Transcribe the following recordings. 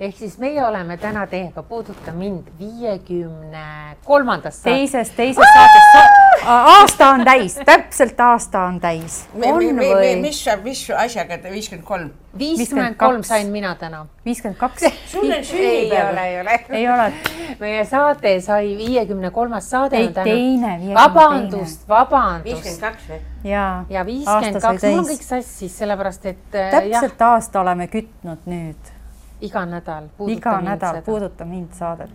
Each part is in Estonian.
Ehk siis meie oleme täna teiega Puuduta mind 53. Teisest saatest. Aasta on täis, täpselt aasta on täis. Mis asjaga 53? 53 sain mina täna. 52. Sul on sünnipäev. Ei ole. Meie saate sai 53. saade. Teine. Vabandust. 52 või? Ja 52. Mul on kõik sassis, sellepärast, et täpselt aasta oleme kütnud nüüd. Iga nädal Puuduta mind saadet.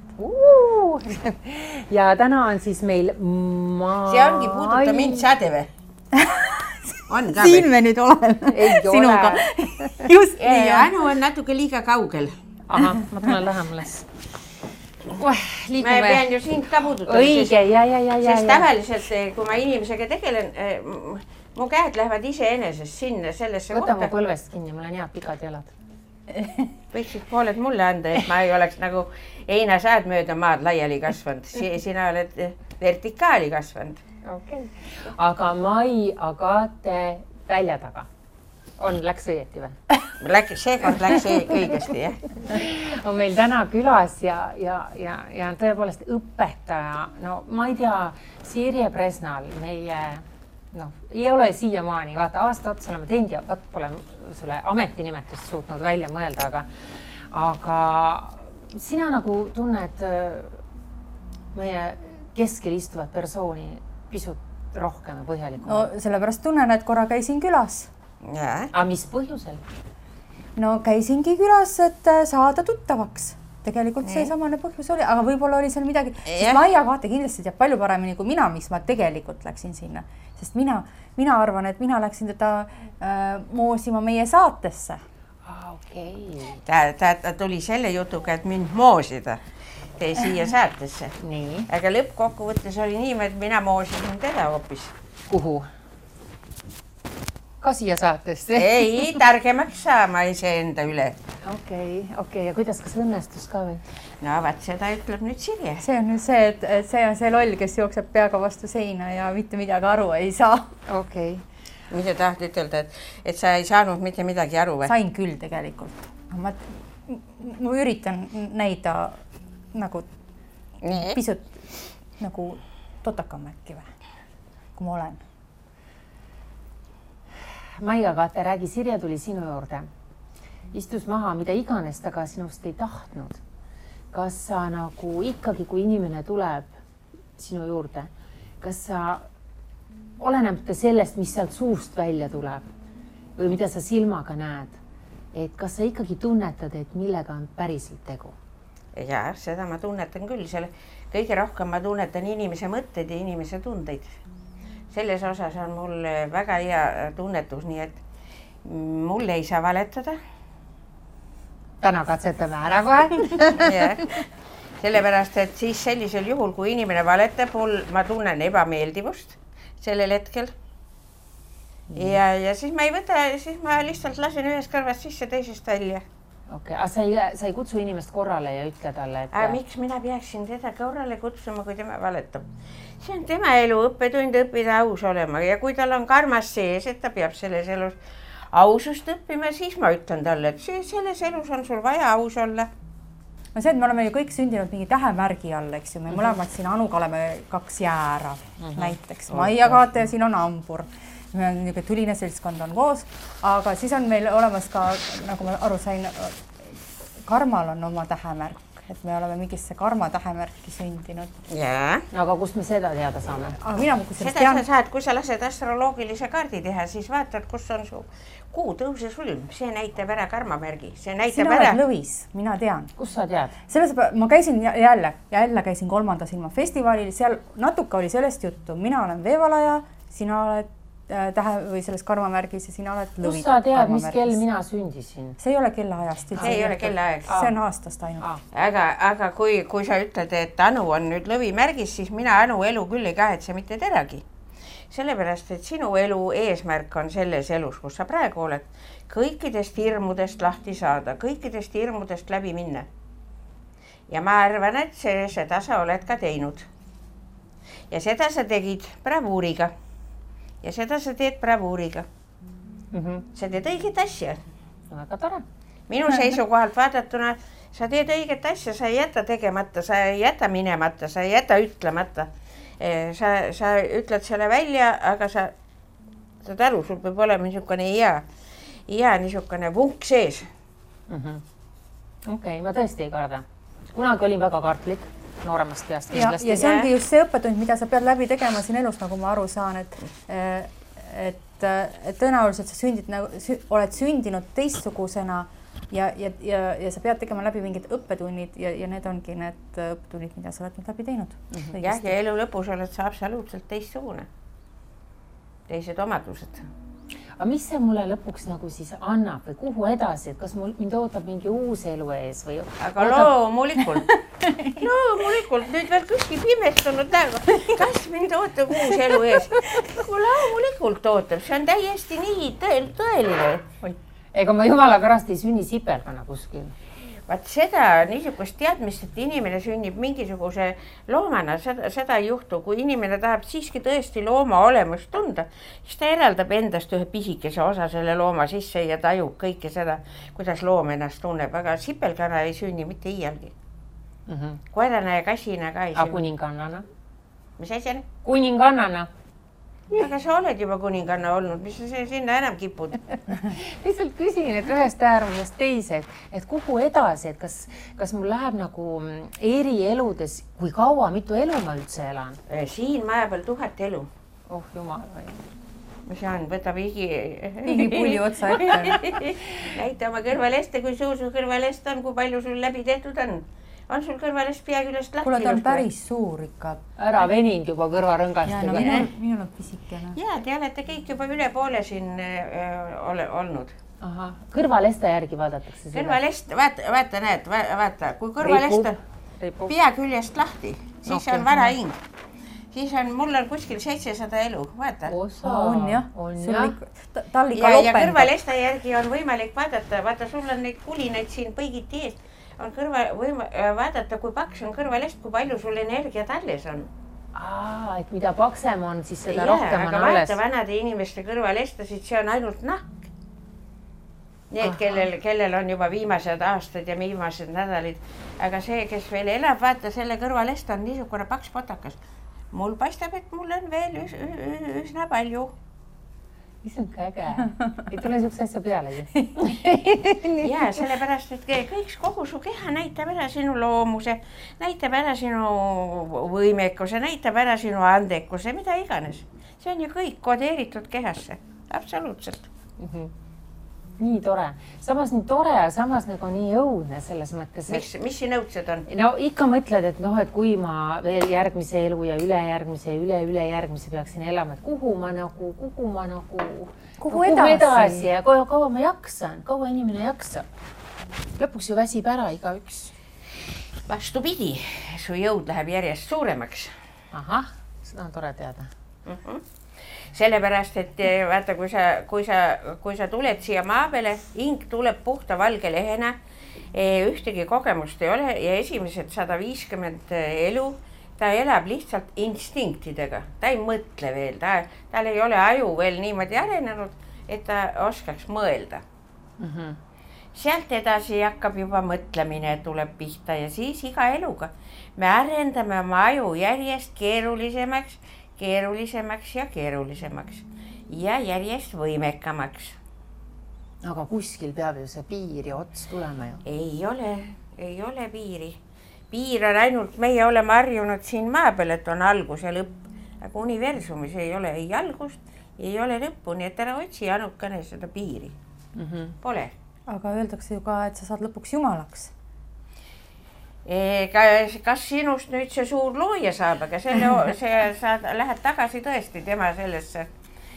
Ja täna on siis meil See ongi Puuduta mind saade või? On ka Siin me nüüd oleme. Sinuga. Just nii. Anu on natuke liiga kaugel. Aha, ma tulen lähemales. Ma pean ju sind ka puudutama. Õige, ja. Sest tavaliselt, kui ma inimesega tegelen, mu käed lähevad iseenesest sinna sellesse kohta. Võta mu põlvest kinni, mul on head pikad jalad. Võiksid pooled mulle anda, et ma ei oleks nagu einasäed mööda maad laiali kasvanud. Sina oled vertikaali kasvanud. Okay. Aga Mai Agate välja taga. Läks õieti või? Seekord läks õigesti, jah. On meil täna külas ja tõepoolest õpetaja. No ma ei tea, Sirje Presnal meie... ei ole siiamaani, vaata aasta otsa oleme teinud ja pole sulle ametinimetust suutnud välja mõelda, aga sina nagu tunned meie keskel istuvat persooni pisut rohkem ja põhjalikum. No sellepärast tunnen, et korra käisin külas. Aga mis põhjusel? No käisingi külas, et saada tuttavaks. Tegelikult see samane põhjus oli, aga võib-olla oli seal midagi, sest Maia Agate kindlasti teab palju paremini kui mina, miks ma tegelikult läksin sinna. Sest mina arvan, et mina läksin teda moosima meie saatesse. Okei. Ta tuli selle jutuga, et mind moosida siia saatesse. Nii. Aga lõppkokkuvõttes oli nii, et mina moosisin teda hoopis. Kuhu? Ka siia saatesse? Ei, targemaks saama iseenda üle. Okei. Ja kuidas, kas õnnestus ka või? No, vaat seda ütleb nüüd Sirje. See on nüüd see, et see on see loll, kes jookseb peaga vastu seina ja mitte midagi aru ei saa. Okei. Mida tahad ütelda, et sa ei saanud mitte midagi aru või? Sain küll tegelikult. Ma üritan näida nagu pisut nagu totakam äkki või, kui ma olen. Mai Agate, räägi, Sirje tuli sinu juurde. Istus maha, mida iganes ta ka sinust ei tahtnud. Kas sa nagu ikkagi, kui inimene tuleb sinu juurde, kas sa olenemata sellest, mis sealt suust välja tuleb või mida sa silmaga näed, et kas sa ikkagi tunnetad, et millega on päriselt tegu? Ja, seda ma tunnetan küll. Kõige rohkem ma tunnetan inimese mõtteid ja inimese tundeid. Selles osas on mul väga hea tunnetus, nii et mul ei saa valetada. Täna katsetame ära kohe. Sellepärast, et siis sellisel juhul, kui inimene valetab, ma tunnen ebameeldivust sellel hetkel. Ja siis ma ei võta, siis ma lihtsalt lasen ühest kõrvast sisse, teisest välja. Okei, aga sa ei kutsu inimest korrale ja ütle talle, et... Aga miks mina peaksin teda korrale kutsuma, kui tema valetab? See on tema elu, õppetund õppida aus olema ja kui tal on karmas sees, et ta peab selles elus ausust õppima, siis ma ütlen talle, et selles elus on sul vaja aus olla. No see, et me oleme ju kõik sündinud mingi tähemärgi all, eks ju, me mõlemad siin Anuga oleme 2 jäära näiteks. Mai Agate ja siin on Ambur. Tuline seltskond on koos, aga siis on meil olemas ka, nagu ma aru sain, Karmal on oma tähemärk, et me oleme mingisse Karma tähemärki sündinud. Jaa. Aga kust me seda teada saame? Seda sa saad, kui sa lased astroloogilise kaardi teha, siis vaatad, kus on su kuu tõuse sulm. See näitab ära karmamärgi. Sina oled Lõvis, mina tean. Kus sa tead? Ma käisin jälle käisin 3. silma festivalil, seal natuke oli sellest juttu. Mina olen veevalaja, sina oled või selles karmamärgis ja sina oled Lõvi. Kus sa tead, mis kell mina sündisin? See ei ole kellaajast. See ei ole kellaajast. See on aastast ainult. Aga kui sa ütled, et Anu on nüüd Lõvi märgis, siis mina Anu elu küll ei kahetse mitte teragi. Sellepärast, et sinu elu eesmärk on selles elus, kus sa praegu oled, kõikidest hirmudest lahti saada, kõikidest hirmudest läbi minna. Ja ma arvan, et seda sa oled ka teinud. Ja seda sa tegid bravuuriga. Ja seda sa teed bravuuriga. Sa teed õiget asja. Väga tore. Minu seisukohalt vaadatuna sa teed õiget asja, sa ei jäta tegemata, sa ei jäta minemata, sa ei jäta ütlemata. Sa ütled selle välja, aga sa saad aru, sul peab olema niisugune hea niisugune vunk sees. Okei, ma tõesti ei karda. Kunagi olin väga kartlik, nooremast peast kindlasti. Ja see ongi just see õppetund, mida sa pead läbi tegema siin elus, nagu ma aru saan, et tõenäoliselt sa oled sündinud teistsugusena ja sa pead tegema läbi mingid õppetunnid ja need ongi need õppetunnid, mida sa oled läbi teinud. Ja elu lõpus oled sa absoluutselt teistsugune. Teised omadused. Aga mis see mulle lõpuks nagu siis annab või kuhu edasi, et kas mind ootab mingi uus elu ees või? Aga loomulikult, nüüd veel kuskil pimestunud näega, kas mind ootab uus elu ees? Loomulikult ootab, see on täiesti nii tõeline. Ega ma jumala pärast ei sünni sipelgana kuskil. Vaat seda niisugust teadmist, et inimene sünnib mingisuguse loomana, seda ei juhtu. Kui inimene tahab siiski tõesti looma olemust tunda, siis ta eraldab endast ühe pisikese osa selle looma sisse ja tajub kõike seda, kuidas loom ennast tunneb. Aga sipelgana ei sünni mitte iialgi. Koerana ja kassina ka ei sünni. Aga kuningannana? Mis asjana? Kuningannana. Aga sa oled juba kuninganna olnud, mis sa sinna enam kipud? Lihtsalt küsin, et ühest äärmusest teise, et kuhu edasi, et kas mul läheb nagu eri eludes, kui kaua, mitu elu ma üldse elan? Siin maja peal 1000 elu. Oh jumal või. Mis on, võtab igipulli otsa ette. Näita oma kõrvaleste, kui suur su kõrvalest on, kui palju sul läbi tehtud on. On sul kõrvalest pea küljest lahti? Kuule, ta on päris suur ikka. Ära veninud juba kõrvarõngast. Minul on pisikene. Jaa, te olete kõik juba üle poole siin olnud. Aha, kõrvaleste järgi vaadatakse seda? Kõrvalest, vaata, kui kõrvalest on pea küljest lahti, siis on vara hing. Siis on, mul on kuskil 700 elu, vaata. On jah. Tal ikka lopendab. Ja kõrvaleste järgi on võimalik vaata, sul on neid kulinaid siin põigiti eest. On vaadata, kui paks on kõrvalest, kui palju sul energiat alles on. Et mida paksem on, siis seda rohkem on alles. Aga vaata vanade inimeste kõrvalestasid, see on ainult nahk. Need, kellel on juba viimased aastad ja viimased nädalid. Aga see, kes veel elab, vaata, selle kõrvalest on niisugune paks potakas. Mul paistab, et mul on veel üsna palju. Issand äge. Ei tule siukse asja pealegi. Ja sellepärast, et kogu su keha näitab ära sinu loomuse, näitab ära sinu võimekuse, näitab ära sinu andekuse, mida iganes. See on ju kõik kodeeritud kehasse. Absoluutselt. Nii tore. Samas nii tore ja samas nagu nii õudne selles mõttes. Mis siin õudsed on? No ikka mõtled, et kui ma veel järgmise elu ja ülejärgmise ja ülejärgmise peaksin elama, et kuhu edasi ja kaua ma jaksan, kaua inimene jaksab. Lõpuks ju väsib ära igaüks. Vastupidi, su jõud läheb järjest suuremaks. Ahah, seda on tore teada. Sellepärast, et vaata, kui sa tuled siia maa peale, hing tuleb puhta valge lehena, ühtegi kogemust ei ole ja esimesed 150 elu, ta elab lihtsalt instinktidega, ta ei mõtle veel, tal ei ole aju veel niimoodi arenenud, et ta oskaks mõelda. Sealt edasi hakkab juba mõtlemine, tuleb pihta ja siis iga eluga me arendame oma aju järjest keerulisemaks ja järjest võimekamaks. Aga kuskil peab ju see piir ja ots tulema ju. Ei ole piiri. Piir on ainult, meie oleme harjunud siin maa peal, et on algus ja lõpp. Aga universumis ei ole ei algust, ei ole lõppu, nii et ära otsi ainukene seda piiri. Pole. Aga öeldakse ju ka, et sa saad lõpuks jumalaks. Kas sinust nüüd see suur looja saab, aga sa lähed tagasi tõesti tema sellesse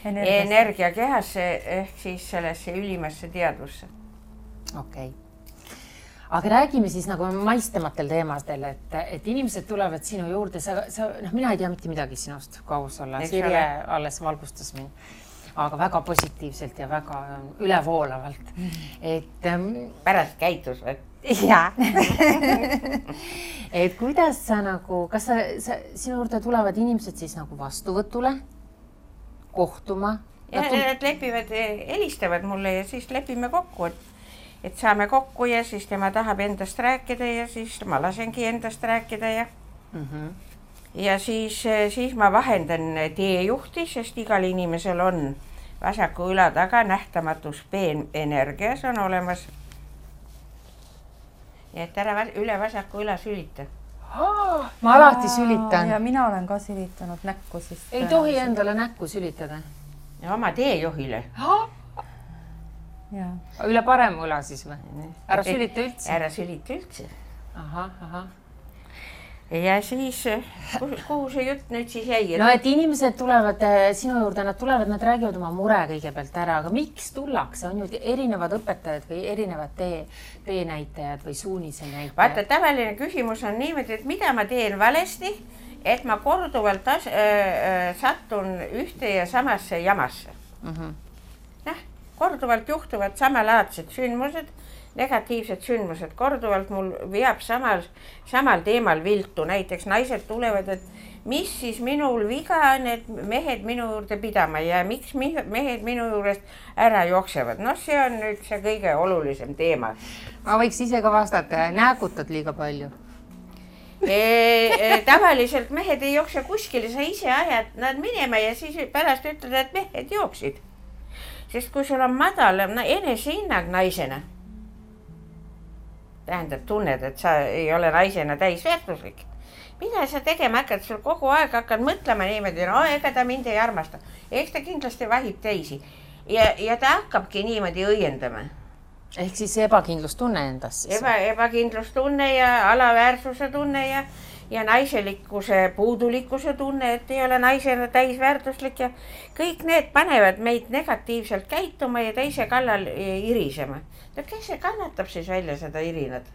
energiakehasse ehk siis sellesse ülimasse teadvusse. Okei. Aga räägime siis nagu maistematel teemadel, et inimesed tulevad sinu juurde, mina ei tea mitte midagi sinust, kui aus olla. Sirje alles valgustas mind, aga väga positiivselt ja väga ülevoolavalt. Pärast käitus või? Jaa. Et kuidas sa nagu, kas sinu juurde tulevad inimesed siis nagu vastuvõtule, kohtuma? Ja nad lepivad, helistavad mulle ja siis lepime kokku, et saame kokku ja siis tema tahab endast rääkida ja siis ma lasengi endast rääkida ja siis ma vahendan teejuhti, sest igal inimesel on vasaku üla taga nähtamatus peenenergia, see on olemas. Nii et ära üle vasaku üla sülita. Ma alati sülitan. Ja mina olen ka sülitanud näkku. Siis ei tohi endale näkku sülitada. Ja oma teejuhile. Üle parem üla siis või? Ära sülita üldse? Ära sülita üldse. Ahah. Ja siis, kuhu see jutt nüüd siis jäi? No, et inimesed tulevad sinu juurde, nad räägivad oma mure kõigepealt ära, aga miks tullakse? On ju erinevad õpetajad või erinevad teenäitajad või suunise näitajad? Vaata, tavaline küsimus on niimoodi, et mida ma teen valesti, et ma korduvalt sattun ühte ja samasse jamasse. Korduvalt juhtuvad samalaadsed sündmused, negatiivsed sündmused, korduvalt mul veab samal teemal viltu. Näiteks naised tulevad, et mis siis minul viga on, et mehed minu juurde pidama ja miks mehed minu juurest ära jooksevad. No see on nüüd see kõige olulisem teema. Ma võiks ise ka vastata, näkutad liiga palju. Tavaliselt mehed ei jookse kuskile, sa ise ajad nad minema ja siis pärast ütled, et mehed jooksid. Sest kui sul on madal enesehinnang naisena, tähendab tunned, et sa ei ole naisena täisväärtuslik. Mida sa tegema hakkad? Sul kogu aeg hakkad mõtlema niimoodi, no ega ta mind ei armasta. Eks ta kindlasti vahib teisi. Ja ta hakkabki niimoodi õiendama. Ehk siis ebakindlustunne endas siis? Ebakindlustunne ja alaväärsuse tunne ja naiselikkuse puudulikkuse tunne, et ei ole naisena täisväärtuslik ja kõik need panevad meid negatiivselt käituma ja teise kallal irisema. Kes see kannatab siis välja seda irinat?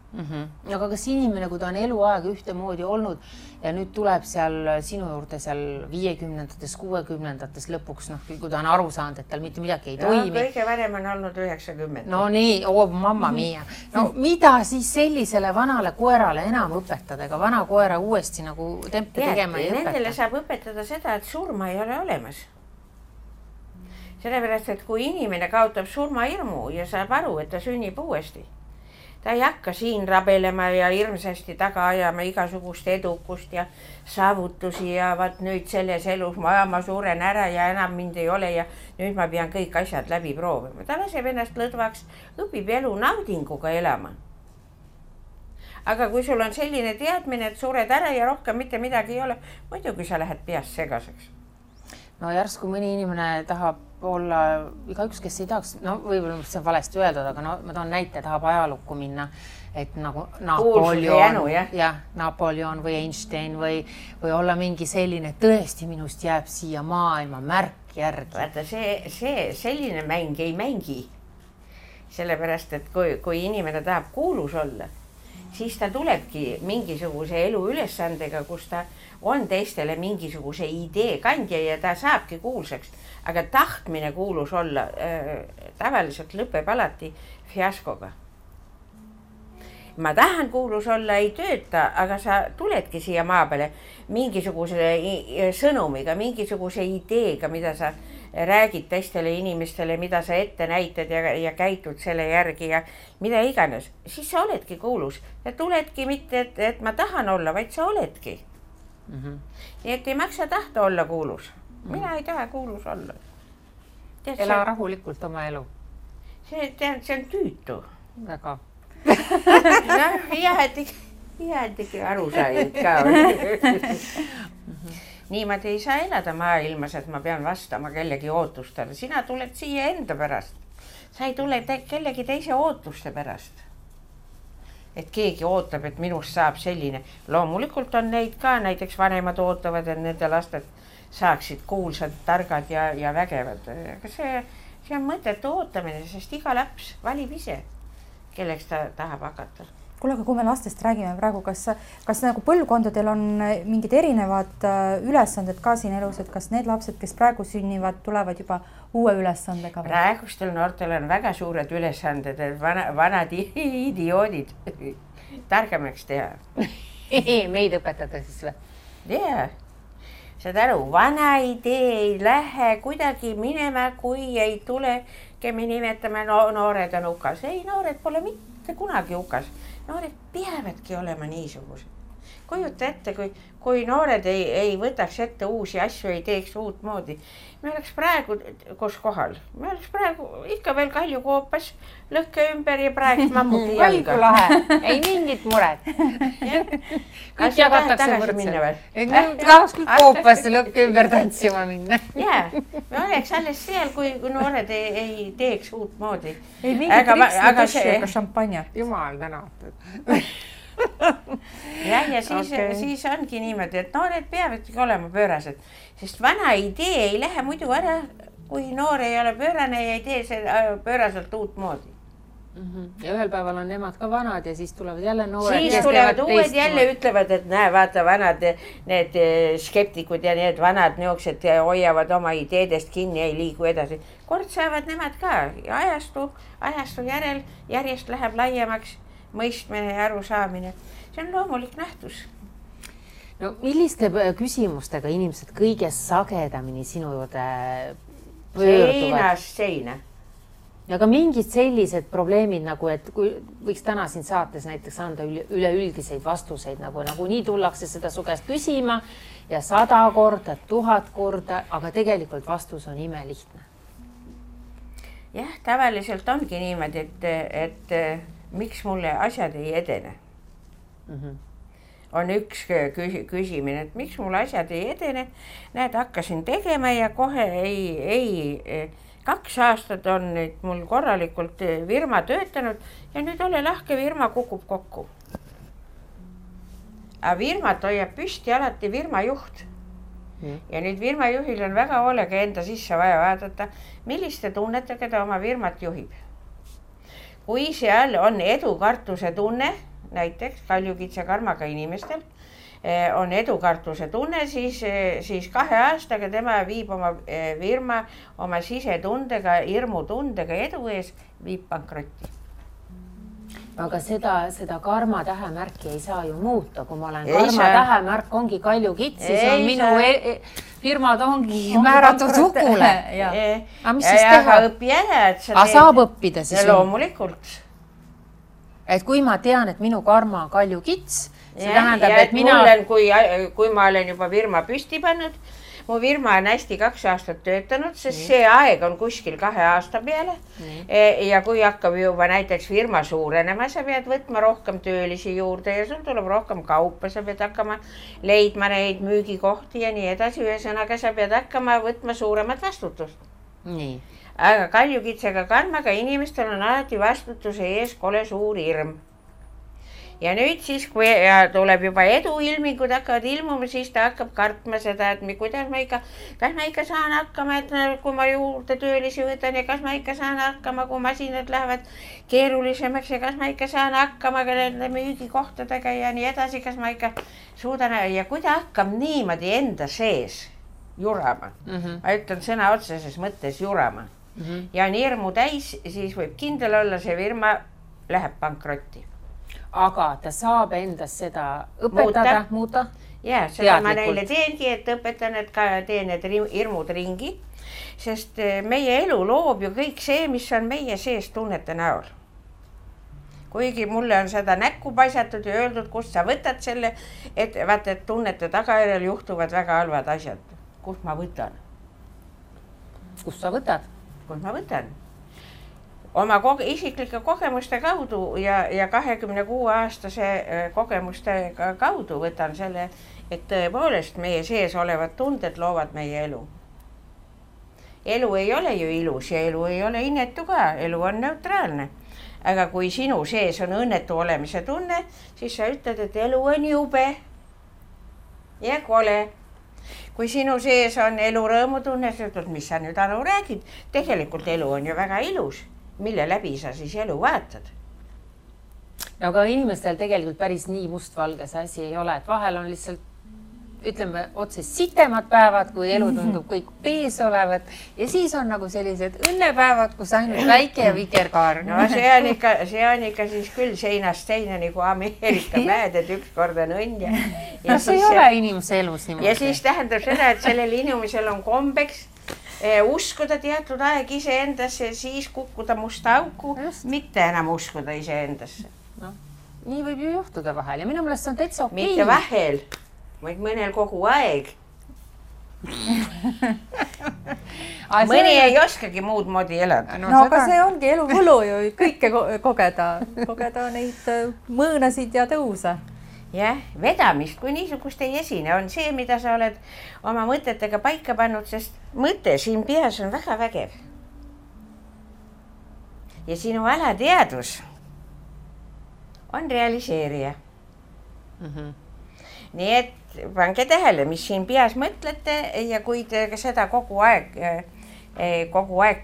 Aga kas inimene, kui ta on eluaeg ühtemoodi olnud ja nüüd tuleb seal sinu juurde seal 50-ndates, 60-ndates lõpuks, kui ta on aru saanud, et tal mitte midagi ei toimi. Kõige varem on olnud 90. No nii, mamma mia. No mida siis sellisele vanale koerale enam õpetada, ega vana koera uuesti nagu tempi tegema ei õpeta? Nendele saab õpetada seda, et surma ei ole olemas. Sellepärast, et kui inimene kaotab surmahirmu ja saab aru, et ta sünnib uuesti, ta ei hakka siin rabelema ja hirmsasti taga ajama igasugust edukust ja saavutusi ja vaat nüüd selles elus ma suren ära ja enam mind ei ole ja nüüd ma pean kõik asjad läbi proovima. Ta laseb ennast lõdvaks, õpib elu naudinguga elama. Aga kui sul on selline teadmine, et sured ära ja rohkem mitte midagi ei ole, muidugi sa lähed peast segaseks. No järsku mõni inimene tahab olla, igaüks, kes ei tahaks, no võib-olla see on valesti öeldud, aga no ma toon näite, tahab ajalukku minna, et nagu Napoleon või Einstein või olla mingi selline, tõesti minust jääb siia maailma märk järgi. Vaata, selline mäng ei mängi. Sellepärast, et kui inimene tahab kuulus olla, siis ta tulebki mingisuguse elu ülesandega, kus ta on teistele mingisuguse idee kandja ja ta saabki kuulsaks. Aga tahtmine kuulus olla tavaliselt lõpeb alati fiaskoga. Ma tahan kuulus olla, ei tööta, aga sa tuledki siia maa peale mingisuguse sõnumiga, mingisuguse ideega, mida sa räägid teistele inimestele, mida sa ette näitad ja käitud selle järgi ja mida iganes. Siis sa oledki kuulus. Ja tuledki mitte, et ma tahan olla, vaid sa oledki. Nii et ei maksa tahta olla kuulus. Mina ei taha kuulus olla. Ela rahulikult oma elu. See on tüütu. Väga. Jäädigi aru said ka. Niimoodi ei saa elada maailmas, et ma pean vastama kellegi ootustele. Sina tuled siia enda pärast. Sa ei tule kellegi teise ootuste pärast. Et keegi ootab, et minust saab selline. Loomulikult on neid ka, näiteks vanemad ootavad, et nende lasted saaksid kuulsad, targad ja vägevad. Aga see on mõttetu ootamine, sest iga laps valib ise, kelleks ta tahab hakata. Kuule, aga kui me lastest räägime praegu, kas nagu põlvkondadel on mingid erinevad ülesanded ka siin elus, et kas need lapsed, kes praegu sünnivad, tulevad juba uue ülesandega? Praegustel noortel on väga suured ülesanded, et vanad idioodid targemaks teha. Meid õpetada siis või? Jaa. Saad aru, vana idee ei lähe kuidagi minema, kui ei tule me nimetame noored on hukas. Ei, noored pole mitte kunagi hukas. Noored peavadki olema niisugused. Kujuta ette, kui noored ei võtaks ette uusi asju, ei teeks uut moodi. Me oleks praegu kus kohal. Me oleks praegu ikka veel Kalju koopas, lõhke ümber ja praegu mammugi jalga. Kalju lahe, ei mingit muret. Kõik jagatakse võrdselt. Tahaks küll koopasse lõhke ümber tantsima minna. Jaa, me oleks alles seal, kui noored ei teeks uut moodi. Ei mingit riksti ega šampanjat. Jumal tänatud. Ja siis ongi niimoodi, et noored peavadki olema pöörased, sest vana idee ei lähe muidu ära, kui noor ei ole pöörane ja ei tee seda pööraselt uut moodi. Ja ühel päeval on nemad ka vanad ja siis tulevad jälle noored. Siis tulevad uued jälle ütlevad, et näe, vaata vanad, need skeptikud ja need vanad niuksed hoiavad oma ideedest kinni, ei liigu edasi. Kord saavad nemad ka ja ajastu järel järjest läheb laiemaks mõistmine ja arusaamine. See on loomulik nähtus. No milliste küsimustega inimesed kõige sagedamini sinu juurde pöörduvad? Seinast seina. Ja ka mingid sellised probleemid, nagu et kui võiks täna siin saates näiteks anda üleüldiseid vastuseid, nagu nii tullakse seda su käest küsima ja 100 korda, 1000 korda, aga tegelikult vastus on imelihtne. Jah, tavaliselt ongi niimoodi, et miks mulle asjad ei edene. On üks küsimine, et miks mulle asjad ei edene. Näed, hakkasin tegema ja kohe ei 2 aastat on nüüd mul korralikult firma töötanud ja nüüd ole lahke, firma kukub kokku. Aga firmat hoiab püsti alati firma juht. Ja nüüd firma juhil on väga hoolega enda sisse vaja vaadata, milliste tunnetega ta oma firmat juhib. Kui seal on edukartuse tunne, näiteks Kaljukitse karmaga inimestel, on edukartuse tunne, siis 2 aastaga tema viib oma firma oma sisetundega, hirmutundega edu ees, viib pankrotti. Aga seda karma tähemärki ei saa ju muuta, kui ma olen karma tähemärk ongi Kaljukits, siis on minu firmad ongi määratud hukule. Aga mis siis teha? Õpi ära, et sa teed. Saab õppida siis? Loomulikult. Et kui ma tean, et minu karma on Kaljukits, see tähendab, et mina... Kui ma olen juba firma püsti pannud, mu firma on hästi 2 aastat töötanud, sest see aeg on kuskil 2 aasta peale. Ja kui hakkab juba näiteks firma suurenema, sa pead võtma rohkem töölisi juurde ja sul tuleb rohkem kaupa, sa pead hakkama leidma neid müügikohti ja nii edasi. Ühesõnaga, sa pead hakkama võtma suuremat vastutust. Nii. Aga Kaljukitsega karmaga inimestel on alati vastutuse ees kole suur hirm. Ja nüüd siis, kui tuleb juba eduilmingud hakkavad ilmuma, siis ta hakkab kartma seda, et kas ma ikka saan hakkama, et kui ma juurde töölisi võtan ja kas ma ikka saan hakkama, kui masinad lähevad keerulisemaks ja kas ma ikka saan hakkama nende müügikohtadega ja nii edasi, kas ma ikka suudan ja kui ta hakkab niimoodi enda sees jurama, ma ütlen sõna otseses mõttes jurama ja on hirmu täis, siis võib kindel olla, see firma läheb pankrotti. Aga ta saab endas seda õpetada, muuta? Jaa, seda ma neile teengi, et õpetan, et ka teen need hirmud ringi, sest meie elu loob ju kõik see, mis on meie sees tunnete näol. Kuigi mulle on seda näkku paisatud ja öeldud, kust sa võtad selle, et vaata, et tunnete tagajärjel juhtuvad väga halvad asjad. Kust ma võtan? Kust sa võtad? Kust ma võtan? Oma isiklike kogemuste kaudu ja 26-aastase kogemuste kaudu võtan selle, et tõepoolest meie sees olevad tunded loovad meie elu. Elu ei ole ju ilus ja elu ei ole inetu ka, elu on neutraalne. Aga kui sinu sees on õnnetu olemise tunne, siis sa ütled, et elu on jube ja kole. Kui sinu sees on elu rõõmutunne, siis ütled, mis sa nüüd Anu räägid, tegelikult elu on ju väga ilus. Mille läbi sa siis elu vaatad? Aga inimestel tegelikult päris nii mustvalge see asi ei ole, et vahel on lihtsalt, ütleme, otse sitemad päevad, kui elu tundub kõik pees olevat ja siis on nagu sellised õnnepäevad, kus ainult väike ja vikerkaar. No see on ikka siis küll seinast seina nagu Ameerika mäed, et üks kord on õnn ja see ei ole inimese elus niimoodi. Ja siis tähendab seda, et sellel inimesel on kombeks uskuda teatud aeg iseendasse, siis kukkuda musta auku, mitte enam uskuda iseendasse. No, nii võib ju juhtuda vahel ja minu meelest see on täitsa okei. Mitte vahel, vaid mõnel kogu aeg. Mõni ei oskagi muud moodi elada. No aga see ongi elu võlu ju kõike kogeda neid mõõnasid ja tõuse. Jah, vedamist kui niisugust ei esine, on see, mida sa oled oma mõtetega paika pannud, sest mõte siin peas on väga vägev. Ja sinu alateadvus on realiseerija. Nii et pange tähele, mis siin peas mõtlete ja kui te seda kogu aeg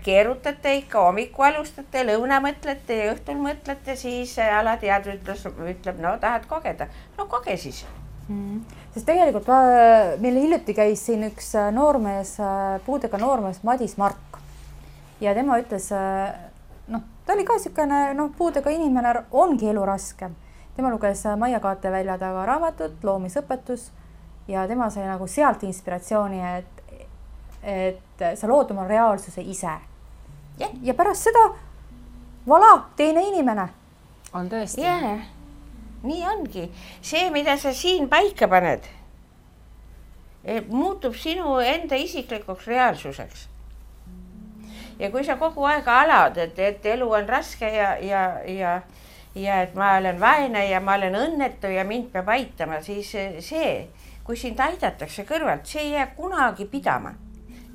keerutate, ikka hommiku alustate, lõuna mõtlete ja õhtul mõtlete, siis alateadvus ütleb, no tahad kogeda. No koge siis. Sest tegelikult meil hiljuti käis siin üks noormees, puudega noormees Madis Mark ja tema ütles, ta oli ka niisugune puudega inimene, ongi elu raske. Tema luges Maia Kaatevälja taga raamatut, loomisõpetus ja tema sai nagu sealt inspiratsiooni, et sa lood oma reaalsuse ise. Ja pärast seda, voilà, teine inimene. On tõesti. Jaa, nii ongi. See, mida sa siin paika paned, muutub sinu enda isiklikuks reaalsuseks. Ja kui sa kogu aeg alad, et elu on raske ja et ma olen vaene ja ma olen õnnetu ja mind peab aitama, siis see, kui sind aidatakse kõrvalt, see ei jää kunagi pidama.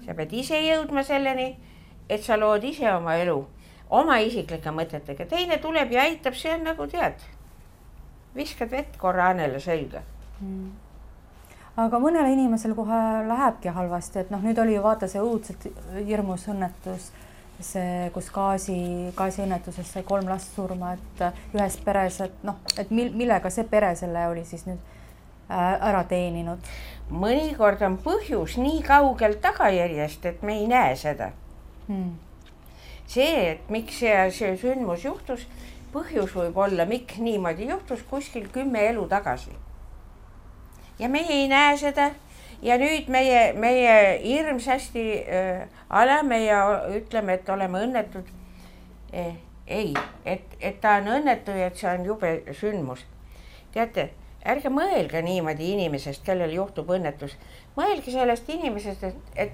Sa pead ise jõudma selleni, et sa lood ise oma elu, oma isiklike mõtetega. Teine tuleb ja aitab, see on nagu tead. Viskad vett korra Annele selga. Aga mõnele inimesel kohe lähebki halvasti, et nüüd oli ju vaata see õudselt hirmus õnnetus, see, kus gaasiõnnetuses sai 3 last surma, et ühes peres, et millega see pere selle oli siis nüüd ära teeninud. Mõnikord on põhjus nii kaugel tagajärjest, et me ei näe seda. See, et miks see sündmus juhtus, põhjus võib olla, miks niimoodi juhtus kuskil 10 elu tagasi. Ja meie ei näe seda ja nüüd meie hirmsasti alame ja ütleme, et oleme õnnetud. Ei, et ta on õnnetu ja et see on jube sündmus. Teate, ärge mõelge niimoodi inimesest, kellel juhtub õnnetus. Mõelge sellest inimesest, et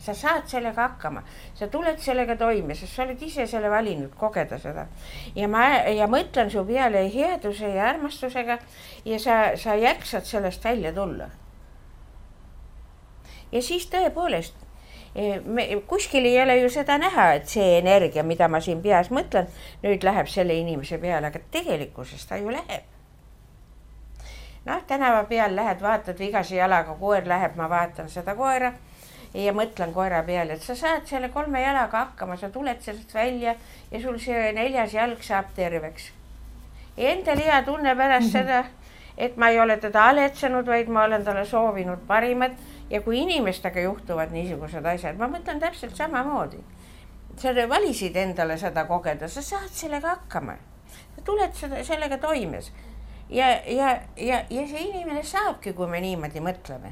sa saad sellega hakkama. Sa tuled sellega toime, sest sa oled ise selle valinud kogeda seda. Ja mõtlen su peale headuse ja armastusega ja sa jäksad sellest välja tulla. Ja siis tõepoolest, kuskil ei ole ju seda näha, et see energia, mida ma siin peas mõtlen, nüüd läheb selle inimese peale, aga tegelikkuses ta ju läheb. Tänava peal lähed, vaatad vigase jalaga, koer läheb, ma vaatan seda koera ja mõtlen koera peale, et sa saad selle 3 jalaga hakkama, sa tuled sellest välja ja sul see 4. jalg saab terveks. Ja endal hea tunne pärast seda, et ma ei ole teda aletsenud, vaid ma olen talle soovinud parimat ja kui inimestega juhtuvad niisugused asjad, ma mõtlen täpselt samamoodi. Sa valisid endale seda kogeda, sa saad sellega hakkama. Sa tuled sellega toimes. Ja see inimene saabki, kui me niimoodi mõtleme.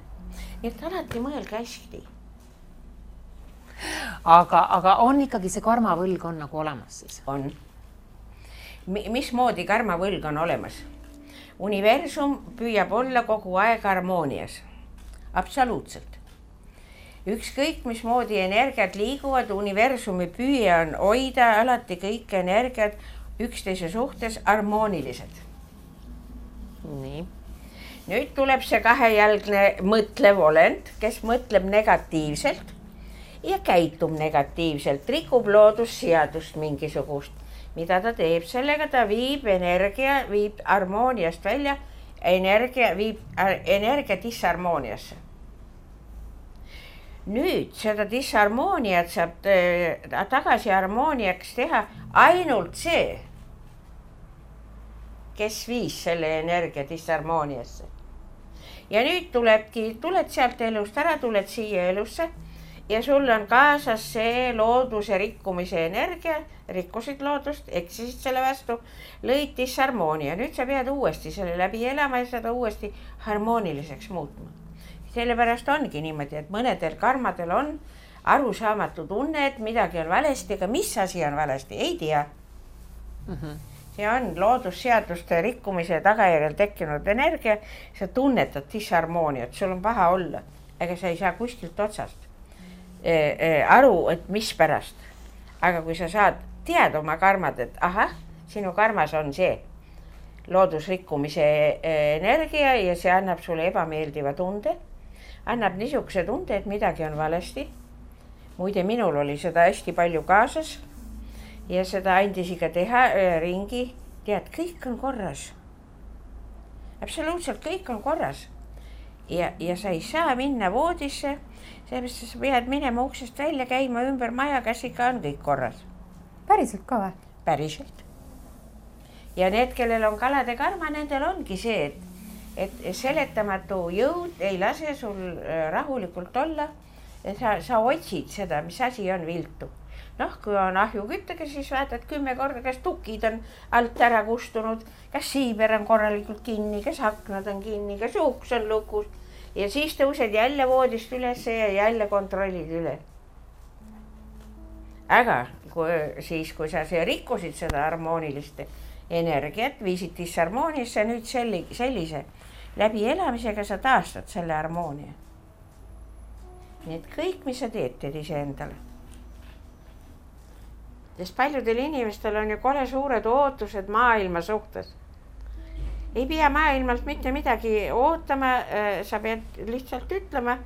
Nii et alati mõelge hästi. Aga on ikkagi see karmavõlg on nagu olemas siis? On. Mismoodi karmavõlg on olemas? Universum püüab olla kogu aeg harmoonias. Absoluutselt. Ükskõik, mismoodi energiat liiguvad, universumi püüe on hoida alati kõik energiat üksteise suhtes harmoonilised. Nii. Nüüd tuleb see 2-jalgne mõtlev olend, kes mõtleb negatiivselt ja käitub negatiivselt, rikub loodusseadust mingisugust. Mida ta teeb? Sellega ta viib harmooniast välja, viib energia disharmooniasse. Nüüd seda disharmooniat saab tagasi harmooniaks teha ainult see, kes viis selle energia disharmooniasse. Ja nüüd tuled sealt elust ära, tuled siia elusse ja sul on kaasas see looduse rikkumise energia, rikkusid loodust, eksisid selle vastu, lõid disharmoonia. Nüüd sa pead uuesti selle läbi elama ja seda uuesti harmooniliseks muutma. Sellepärast ongi niimoodi, et mõnedel karmadel on arusaamatu tunne, et midagi on valesti, aga mis asi on valesti, ei tea. See on loodusseaduste rikkumise tagajärjel tekkinud energia, sa tunnetad disharmooniat, sul on paha olla, aga sa ei saa kuskilt otsast aru, et mis pärast. Aga kui sa saad teada oma karmad, et ahah, sinu karmas on see loodusrikkumise energia ja see annab sulle ebameeldiva tunde, annab niisuguse tunde, et midagi on valesti. Muide, minul oli seda hästi palju kaasas ja seda andis ikka teha ringi. Tead, kõik on korras. Absoluutselt kõik on korras. Ja sa ei saa minna voodisse, sellepärast sa pead minema uksest välja, käima ümber maja, kas ikka on kõik korras. Päriselt ka või? Päriselt. Ja need, kellel on kalade karma, nendel ongi see, et seletamatu jõud ei lase sul rahulikult olla, et sa otsid seda, mis asi on viltu. Kui on ahjuküttega, siis vaatad 10 korda, kas tukid on alt ära kustunud, kas siiber on korralikult kinni, kas aknad on kinni, kas uks on lukus. Ja siis tõused jälle voodist üles ja jälle kontrollid üle. Aga kui sa rikkusid seda harmoonilist energiat, viisid disharmooniasse, nüüd sellise läbi elamisega sa taastad selle harmoonia. Nii et kõik, mis sa teed ise endale. Sest paljudel inimestel on ju kole suured ootused maailma suhtes. Ei pea maailmalt mitte midagi ootama, sa pead lihtsalt ütlema,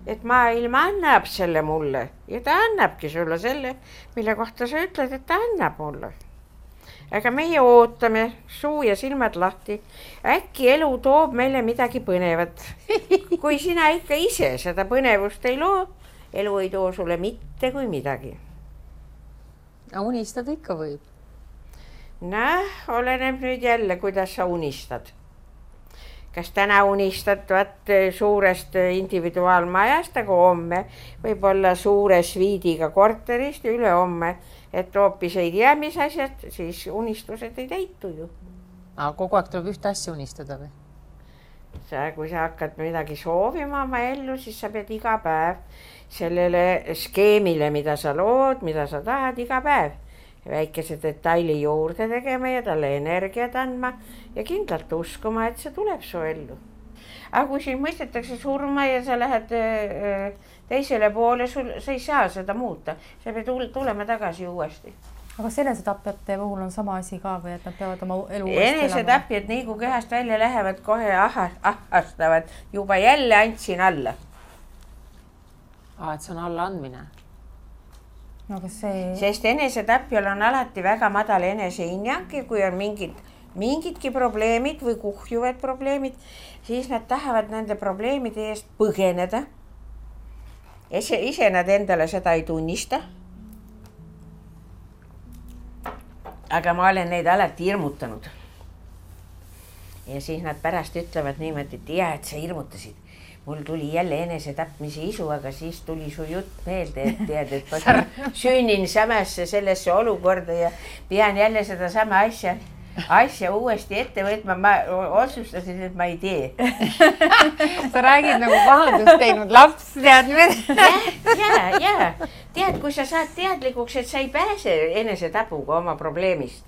et maailm annab selle mulle ja ta annabki sulle selle, mille kohta sa ütled, et ta annab mulle. Aga meie ootame suu ja silmad lahti. Äkki elu toob meile midagi põnevat. Kui sina ikka ise seda põnevust ei loo, elu ei too sulle mitte kui midagi. Unistada ikka võib. Oleneb nüüd jälle, kuidas sa unistad. Kas täna unistad suurest individuaalmajast, aga homme võib olla suure sviidiga korterist ja üle homme, et hoopis ei tea, mis asjad, siis unistused ei täitu ju. Aga kogu aeg tuleb ühte asja unistada või? Kui sa hakkad midagi soovima oma ellu, siis sa pead iga päev sellele skeemile, mida sa lood, mida sa tahad iga päev. Väikese detaili juurde tegema ja talle energiat andma ja kindlalt uskuma, et see tuleb su ellu. Aga kui siin mõistetakse surma ja sa lähed teisele poole, sa ei saa seda muuta. Sa pead tulema tagasi uuesti. Aga enesetapjate puhul on sama asi ka või, et nad peavad oma elu uuesti elama? Enesetapjad nii kui kehast välja lähevad, kohe ahastavad. Juba jälle andsin alla. Et see on alla andmine. No, Sest enesetapjal on alati väga madal enesehinnang ja kui on mingidki probleemid või kuhjuvad probleemid, siis nad tahavad nende probleemide eest põgeneda. Ise nad endale seda ei tunnista. Aga ma olen neid alati hirmutanud. Ja siis nad pärast ütlevad niimoodi, et sa hirmutasid. Mul tuli jälle enesetapmise isu, aga siis tuli su jutt meelde, et tead, et ma sünnin samasse sellesse olukorda ja pean jälle seda sama asja uuesti ette võtma. Ma otsustasin, et ma ei tee. Sa räägid nagu pahandust teinud laps, tead nüüd? Ja. Tead, kui sa saad teadlikuks, et sa ei pääse enesetapuga oma probleemist.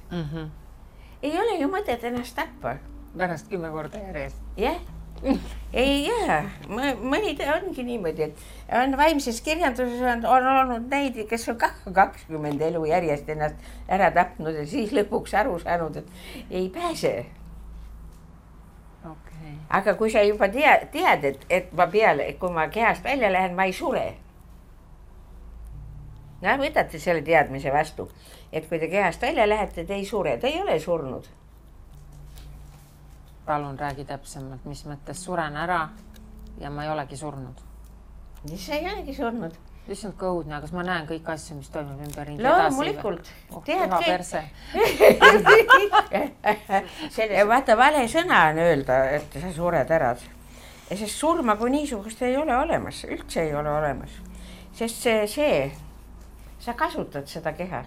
Ei ole ju mõtet ennast tappa. Pärast 10 korda järjest. Jah. Ei jää, mõni ongi niimoodi, et on vaimses kirjanduses on olnud neid, kes on 20 elu järjest ennast ära tapnud ja siis lõpuks aru saanud, et ei pääse. Okay. Aga kui sa juba tead, et kui ma kehast välja lähen, ma ei sure. Võtate selle teadmise vastu, et kui te kehast välja lähete, te ei sure, te ei ole surnud. Palun räägi täpsemalt, mis mõttes suren ära ja ma ei olegi surnud. Sa ei olegi surnud. Issand kõudne, kas ma näen kõik asju, mis toimub ümber ringi loomulikult. Teha perse. Vaata, vale sõna on öelda, et sa sured ära. Sest surma kui niisugust ei ole olemas, üldse ei ole olemas. Sest sa kasutad seda keha.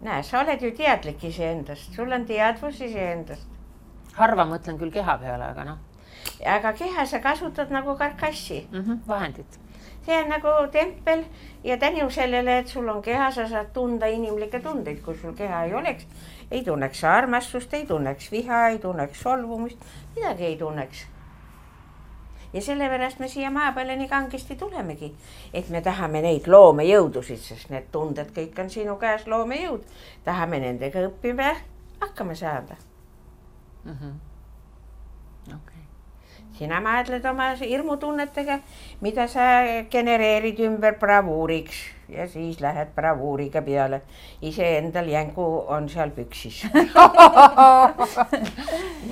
Sa oled ju teadlik iseendast, sul on teadvus iseendast. Harva mõtlen küll keha peale, aga aga keha sa kasutad nagu karkassi. Vahendid. See on nagu tempel ja tänu sellele, et sul on keha, sa saad tunda inimlikke tundeid, kui sul keha ei oleks, ei tunneks armastust, ei tunneks viha, ei tunneks solvumist, midagi ei tunneks. Ja sellepärast me siia maa peale nii kangesti tulemegi, et me tahame neid loomejõudusid, sest need tunded kõik on sinu käes loomejõud. Tahame nendega õppima hakkama saada. Sina maadled oma hirmutunnetega, mida sa genereerid ümber bravuuriks ja siis lähed bravuuriga peale. Ise endal jängu on seal püksis.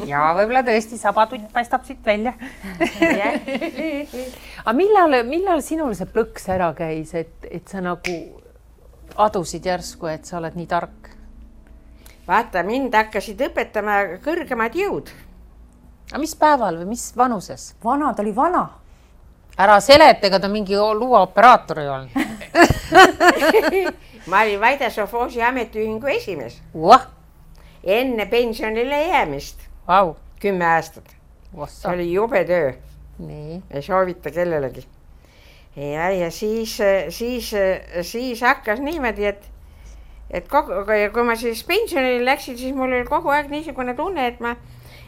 Ja võib-olla tõesti sabatutt paistab siit välja. Aga millal sinul see plõks ära käis, et sa nagu adusid järsku, et sa oled nii tark? Vaata, mind hakkasid õpetama kõrgemad jõud. Aga mis päeval või mis vanuses? Vana, ta oli vana. Ära seletega, ta mingi luuaoperaator ei olnud. Ma olin Vaida Sofoosi ametiühingu esimees. Enne pensionile jäämist. 10 aastat. See oli jube töö. Ei soovita kellelegi. Ja siis hakkas niimoodi, et kui ma siis pensionile läksin, siis mul oli kogu aeg niisugune tunne,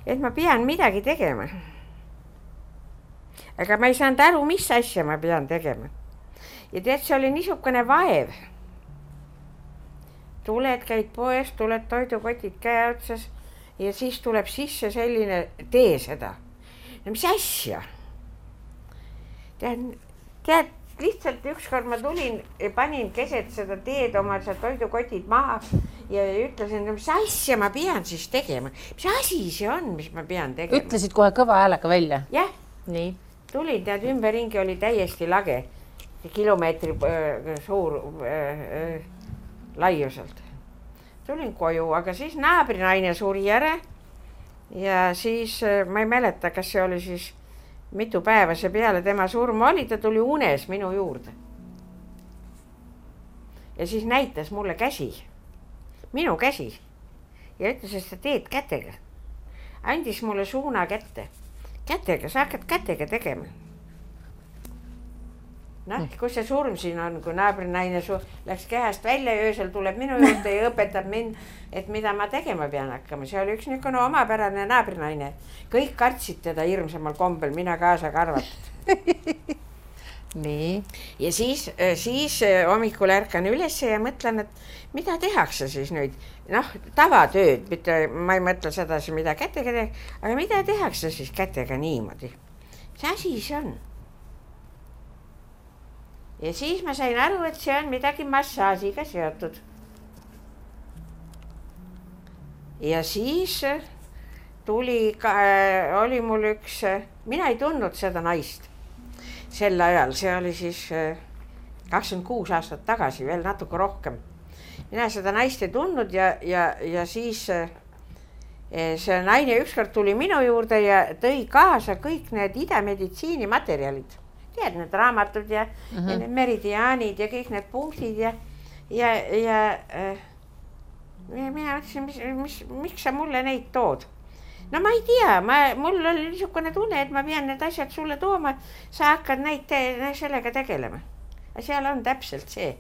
et ma pean midagi tegema. Aga ma ei saanud aru, mis asja ma pean tegema. Ja tead, see oli niisugune vaev. Tuled, käid poes, tuled toidukotid käe otsas ja siis tuleb sisse selline, tee seda. No mis asja? Tead, lihtsalt ükskord ma tulin ja panin keset seda teed oma toidukotid maha ja ütlesin, mis asja ma pean siis tegema. Mis asi see on, mis ma pean tegema? Ütlesid kohe kõva häälega välja? Jah. Nii. Tulin, tead, ümberringi oli täiesti lage. Kilomeetri suur laiuselt. Tulin koju, aga siis naabrinaine suri ära ja siis ma ei mäleta, kas see oli siis mitu päeva see peale tema surma oli, ta tuli unes minu juurde. Ja siis näitas mulle käsi, minu käsi ja ütles, et sa teed kätega. Andis mulle suuna kätte. Kätega, sa hakkad kätega tegema. Noh, kui see surm siin on, kui naabrinaine läks kehast välja ja öösel tuleb minu juurde ja õpetab mind, et mida ma tegema pean hakkama. See oli üks niisugune omapärane naabrinaine. Kõik kartsid teda hirmsamal kombel, mina kaasa karvatud. Nii. Ja siis hommikul ärkan üles ja mõtlen, et mida tehakse siis nüüd? Noh, tavatööd, ma ei mõtle sedasi, mida kätega teha, aga mida tehakse siis kätega niimoodi? See asi see on. Ja siis ma sain aru, et see on midagi massaasiga seotud. Ja siis oli mul üks, mina ei tundnud seda naist sel ajal, see oli siis 26 aastat tagasi, veel natuke rohkem. Mina seda naist ei tundnud ja siis see naine ükskord tuli minu juurde ja tõi kaasa kõik need idameditsiini materjalid. Tead, need raamatud ja need meridiaanid ja kõik need punktid ja mina mõtlesin, miks sa mulle neid tood? No ma ei tea, mul oli niisugune tunne, et ma pean need asjad sulle tooma, sa hakkad neid sellega tegelema. Seal on täpselt see,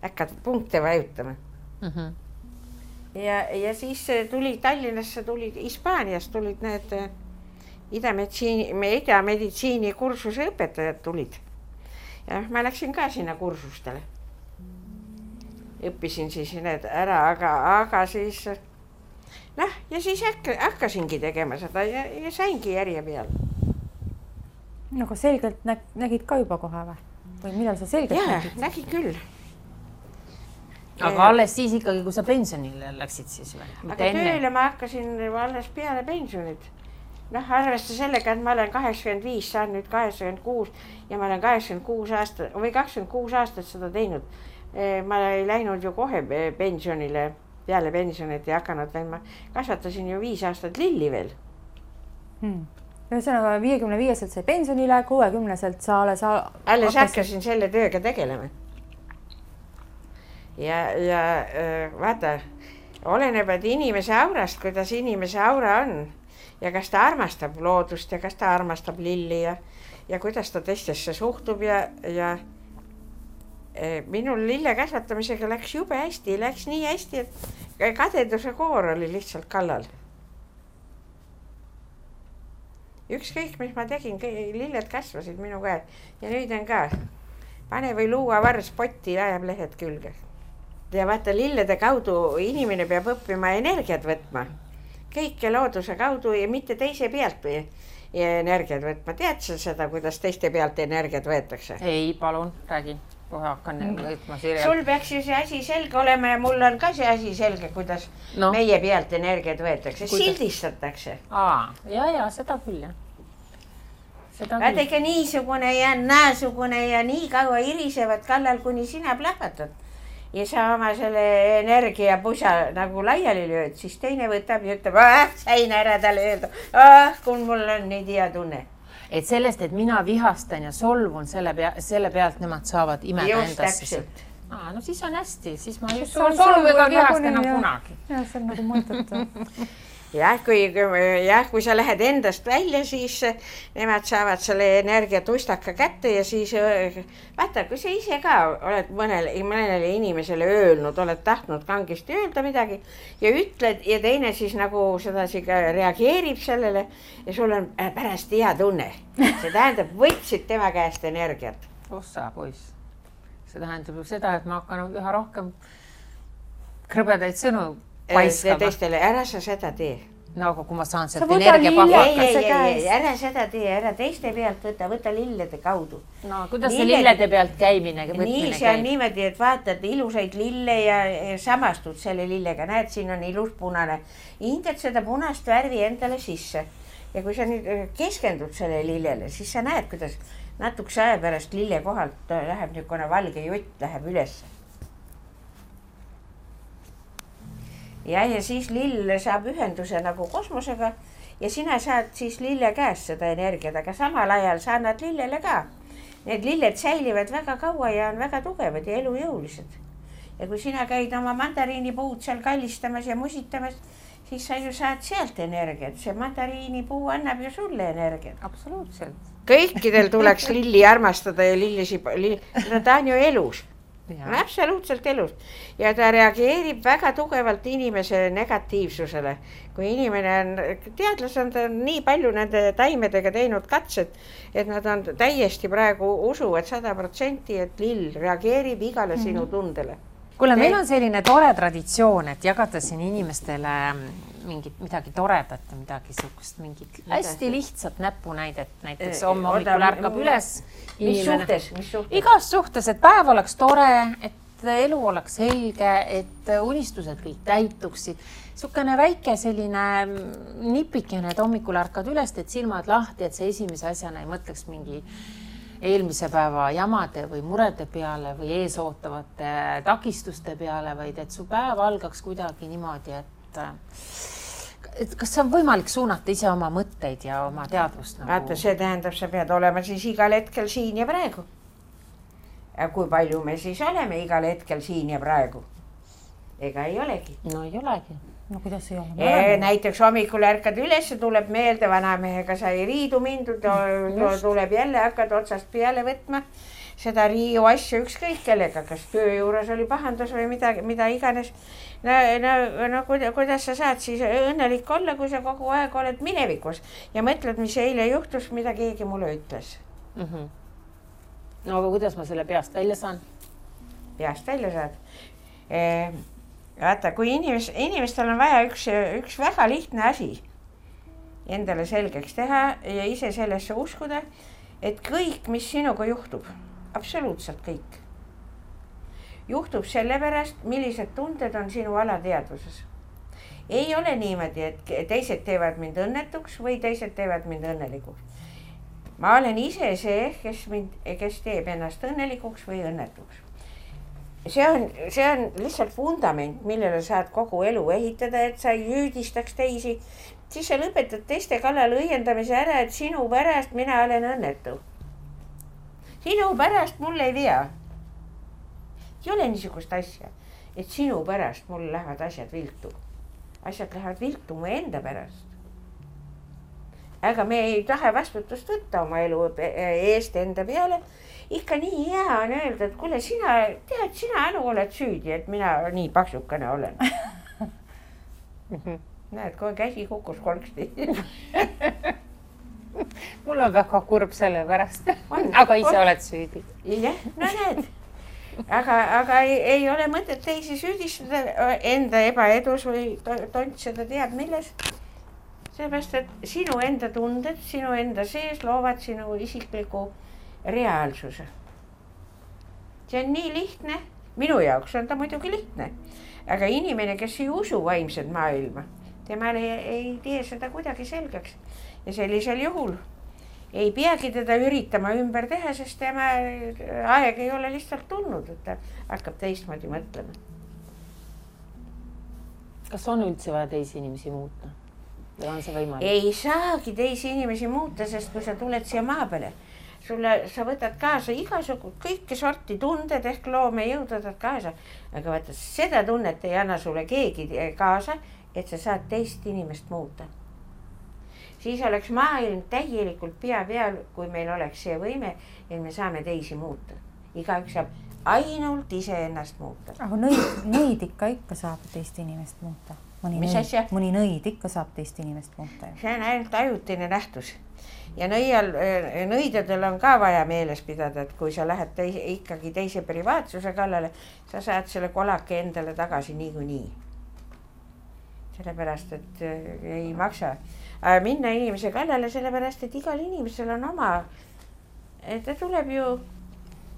hakkad punkte vajutama. Ja siis tuli Tallinnasse, tulid Hispaaniast, tulid need idameditsiini kursuse õpetajad tulid. Ja ma läksin ka sinna kursustele. Õppisin siis need ära, aga siis ja siis hakkasingi tegema seda ja saingi järje peal. No aga selgelt nägid ka juba kohe või? Või millal sa selgelt nägid? Ja, nägin küll. Aga alles siis ikkagi, kui sa pensionile läksid siis või? Aga tööle ma hakkasin alles peale pensionit. Noh, arvesta sellega, et ma olen 85, saan nüüd 86 ja ma olen 26 aastat seda teinud. Ma ei läinud ju kohe pensionile, peale pensionit ja hakanud veel, ma kasvatasin ju 5 aastat lilli veel. Ühesõnaga 55-selt sai pensionile, 60-selt sa alles hakkasin selle tööga tegelema. Ja vaata, oleneb, et inimese aurast, kuidas inimese aura on. ja kas ta armastab loodust ja kas ta armastab lilli ja kuidas ta teistesse suhtub ja minul lille kasvatamisega läks jube hästi, läks nii hästi, et kadeduse koor oli lihtsalt kallal. Ükskõik, mis ma tegin, lilled kasvasid minu käed ja nüüd on ka. Pane või luua vars potti ja ajab lehed külge. Ja vaata, lillede kaudu inimene peab õppima energiat võtma. Kõike looduse kaudu ja mitte teise pealt energiat võtma. Tead sa seda, kuidas teiste pealt energiat võetakse? Ei, palun, räägi. Kohe hakkan võtma sirjalt. Sul peaks ju see asi selge olema ja mul on ka see asi selge, kuidas meie pealt energiat võetakse. Sildistatakse. Ja, seda küll, jah. Vaadake niisugune ja naasugune ja nii kaua irisevad kallal, kuni sina plahvatad. Ja sa oma selle energia pusa nagu laiali lööd, siis teine võtab ja ütleb, sain ära talle öelda, kui mul on nii hea tunne. Et sellest, et mina vihastan ja solvun selle pealt, nemad saavad imeda endasse. No siis on hästi, siis ma just solvu ega vihasta enam kunagi. Jah, see on nagu mõttetu. Jah, kui sa lähed endast välja, siis nemad saavad selle energiatustaka kätte ja siis vaata, kui sa ise ka oled mõnele inimesele öelnud, oled tahtnud kangesti öelda midagi ja ütled ja teine siis nagu sedasi ka reageerib sellele ja sul on pärast hea tunne. See tähendab, võtsid tema käest energiat. Ossa, poiss. See tähendab ju seda, et ma hakkan üha rohkem krõbedaid sõnu paiskama. Teistele, ära sa seda tee. No aga kui ma saan sealt energia ära seda tee, ära teiste pealt võta lillede kaudu. No kuidas see lillede pealt käimine? Nii see on niimoodi, et vaatad ilusaid lille ja samastud selle lillega. Näed, siin on ilus punane. Hingad seda punast värvi endale sisse. Ja kui sa nüüd keskendud selle lillele, siis sa näed, kuidas natukese aja pärast lille kohalt läheb niisugune valge jutt, läheb üles. Ja siis lill saab ühenduse nagu kosmosega ja sina saad siis lille käest seda energiat, aga samal ajal sa annad lillele ka. Need lilled säilivad väga kaua ja on väga tugevad ja elujõulised. Ja kui sina käid oma mandariinipuud seal kallistamas ja musitamas, siis sa ju saad sealt energiat. See mandariinipuu annab ju sulle energiat. Absoluutselt. Kõikidel tuleks lilli armastada ja ta on ju elus. Absoluutselt elus. Ja ta reageerib väga tugevalt inimese negatiivsusele. Kui inimene on, teadlased on nii palju nende taimedega teinud katsed, et nad on täiesti praegu usuvad 100%, et lill reageerib igale sinu tundele. Kuule, meil on selline tore traditsioon, et jagada siin inimestele midagi toredat ja midagi suhkust, mingit hästi lihtsat näpunäidet. Näiteks hommikul ärkab üles. Mis suhtes? Igas suhtes, et päev oleks tore, et elu oleks selge, et unistused kõik täituksid. Sukene väike selline nipikene, et hommikul ärkad üles, et silmad lahti, et see esimese asjana ei mõtleks mingi eelmise päeva jamade või murede peale või eesootavate takistuste peale, vaid et su päev algaks kuidagi niimoodi, et kas see on võimalik suunata ise oma mõtteid ja oma teadvust? Vaata, see tähendab, sa pead olema siis igal hetkel siin ja praegu. Ja kui palju me siis oleme igal hetkel siin ja praegu? Ega ei olegi. No ei olegi. No kuidas ei ole? Näiteks hommikul ärkad üles, tuleb meelde, vanamehega sai riidu mindud, tuleb jälle, hakkad otsast peale võtma seda riiu asju ükskõik kellega, kas töö juures oli pahandus või mida iganes. No kuidas sa saad siis õnnelik olla, kui sa kogu aeg oled minevikus ja mõtled, mis eile juhtus, mida keegi mulle ütles. No aga kuidas ma selle peast välja saan? Peast välja saad? Vaata, kui inimestel on vaja üks väga lihtne asi endale selgeks teha ja ise sellesse uskuda, et kõik, mis sinuga juhtub, absoluutselt kõik, juhtub sellepärast, millised tunded on sinu alateadvuses. Ei ole niimoodi, et teised teevad mind õnnetuks või teised teevad mind õnnelikuks. Ma olen ise see, kes teeb ennast õnnelikuks või õnnetuks. See on lihtsalt fundament, millele saad kogu elu ehitada, et sa ei hüüdistaks teisi. Siis sa lõpetad teiste kallal õiendamise ära, et sinu pärast mina olen õnnetu. Sinu pärast mul ei vea. Ei ole niisugust asja, et sinu pärast mul lähevad asjad viltu. Asjad lähevad viltu mu enda pärast. aga me ei taha vastutust võtta oma elu eest enda peale. Ikka nii hea on öelda, et kuule, sina Anu oled süüdi, et mina nii paksukene olen. Näed, kui käsi kukkus kolksti. Mul on väga kurb selle pärast, aga ise oled süüdi. Jah, no näed. Aga ei ole mõtet teisi süüdistada enda ebaedus või tontseda teab milles. Seepärast, et sinu enda tunded, sinu enda sees loovad sinu isikliku reaalsuse. See on nii lihtne. Minu jaoks on ta muidugi lihtne. Aga inimene, kes ei usu vaimsed maailma, temale ei tee seda kuidagi selgeks. Ja sellisel juhul ei peagi teda üritama ümber teha, sest tema aeg ei ole lihtsalt tulnud, et ta hakkab teistmoodi mõtlema. Kas on üldse vaja teisi inimesi muuta? Või on see võimalik? Ei saagi teisi inimesi muuta, sest kui sa tuled siia maa peale, sa võtad kaasa igasugust kõike sorti tunded ehk loomejõud võtad kaasa. Aga vaata, seda tunnet ei anna sulle keegi kaasa, et sa saad teist inimest muuta. Siis oleks maailm täielikult pea peal, kui meil oleks see võime, et me saame teisi muuta. Igaüks saab ainult ise ennast muuta. Aga nõid ikka saab teist inimest muuta. Mõni nõid ikka saab teist inimest muuta. See on ainult ajutine nähtus. Ja nõidadel on ka vaja meeles pidada, et kui sa lähed ikkagi teise privaatsuse kallale, sa saad selle kolake endale tagasi niikuinii. Sellepärast, et ei maksa minna inimese kallale, sellepärast, et igal inimesel on oma, ta tuleb ju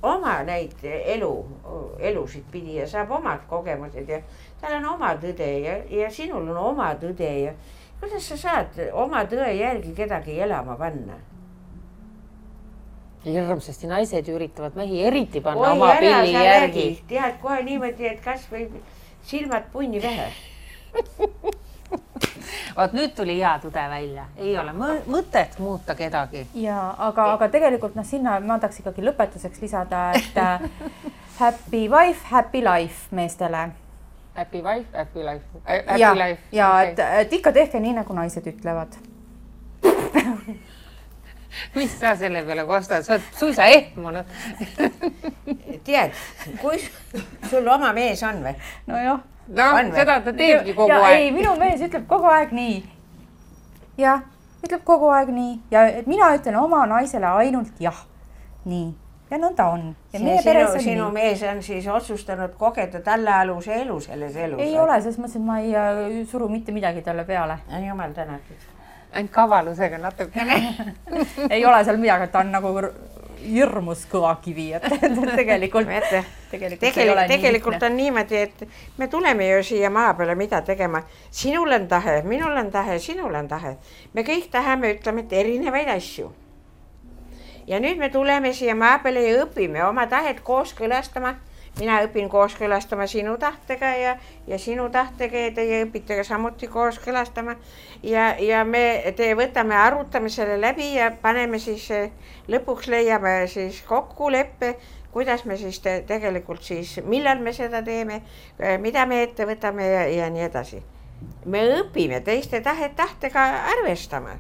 oma neid elusid pidi ja saab omad kogemused ja tal on oma tõde ja sinul on oma tõde ja kuidas sa saad oma tõe järgi kedagi elama panna? Hirmsasti naised üritavad mehi eriti panna oma pilli järgi. Tead kohe niimoodi, et kas või silmad punni vähe. Vaat nüüd tuli hea tõde välja. Ei ole mõtet muuta kedagi. Ja, aga tegelikult sinna ma tahaks ikkagi lõpetuseks lisada, et happy wife, happy life meestele. Happy wife, happy life. Ja et ikka tehke nii, nagu naised ütlevad. Mis sa selle peale kostad? Sa oled suisa ehmunud. Tead, kui sul oma mees on või? No jah. No, seda ta teebki kogu aeg. Ei, minu mees ütleb kogu aeg nii. Ja, ütleb kogu aeg nii. Ja et mina ütlen oma naisele ainult jah. Nii. Ja nõnda on. Ja sinu mees on siis otsustanud kogeda tallealuse elu selles elus. Ei ole, sest mõtlesin, et ma ei suru mitte midagi talle peale. Jumal tänatud. Ainult kavalusega natukene. Ei ole seal midagi, et ta on nagu hirmus kõva kivi, et tegelikult on niimoodi, et me tuleme ju siia maa peale mida tegema. Sinul on tahe, minul on tahe, sinul on tahe. Me kõik tahame, ütleme, et erinevaid asju. Ja nüüd me tuleme siia maa peale ja õpime oma tahet kooskõlastama. Mina õpin kooskõlastama sinu tahtega ja sinu tahtega ja teie õpite ka samuti kooskõlastama. Ja me võtame, arutame selle läbi ja paneme siis lõpuks leiame siis kokkuleppe, kuidas me siis tegelikult siis, millal me seda teeme, mida me ette võtame ja nii edasi. Me õpime teiste tahtega arvestama.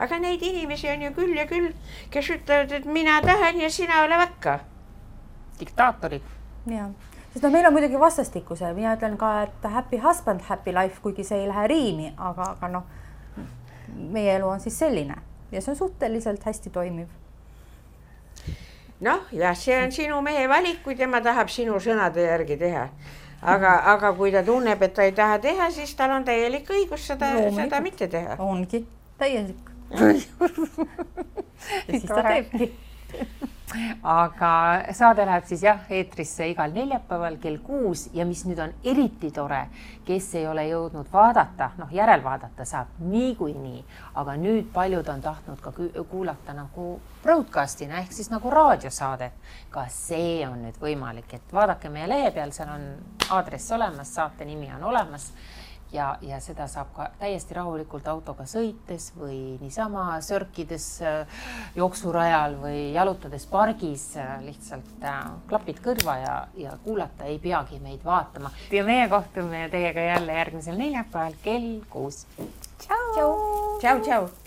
Aga neid inimesi on ju küll ja küll, kes ütlevad, et mina tahan ja sina ole vakka. Diktaatorid. Ja, sest meil on muidugi vastastikuse. Mina ütlen ka, et happy husband, happy life, kuigi see ei lähe riimi, aga meie elu on siis selline ja see on suhteliselt hästi toimiv. Noh, ja see on sinu mehe valik, kui tema tahab sinu sõnade järgi teha. Aga kui ta tunneb, et ta ei taha teha, siis tal on täielik õigus seda mitte teha. Ongi täielik. Ja siis ta teebki. Aga saade läheb siis eetrisse igal neljapäeval kell 6 ja mis nüüd on eriti tore, kes ei ole jõudnud vaadata, järelvaadata saab niikuinii, aga nüüd paljud on tahtnud ka kuulata nagu broadcastina ehk siis nagu raadiosaadet. Ka see on nüüd võimalik, et vaadake meie lehe peal, seal on aadress olemas, saate nimi on olemas ja seda saab ka täiesti rahulikult autoga sõites või niisama sörkides jooksurajal või jalutades pargis lihtsalt klapid kõrva ja kuulata ei peagi meid vaatama. Ja meie kohtume teiega jälle järgmisel neljapäeval kell 6. Tšau! Tšau!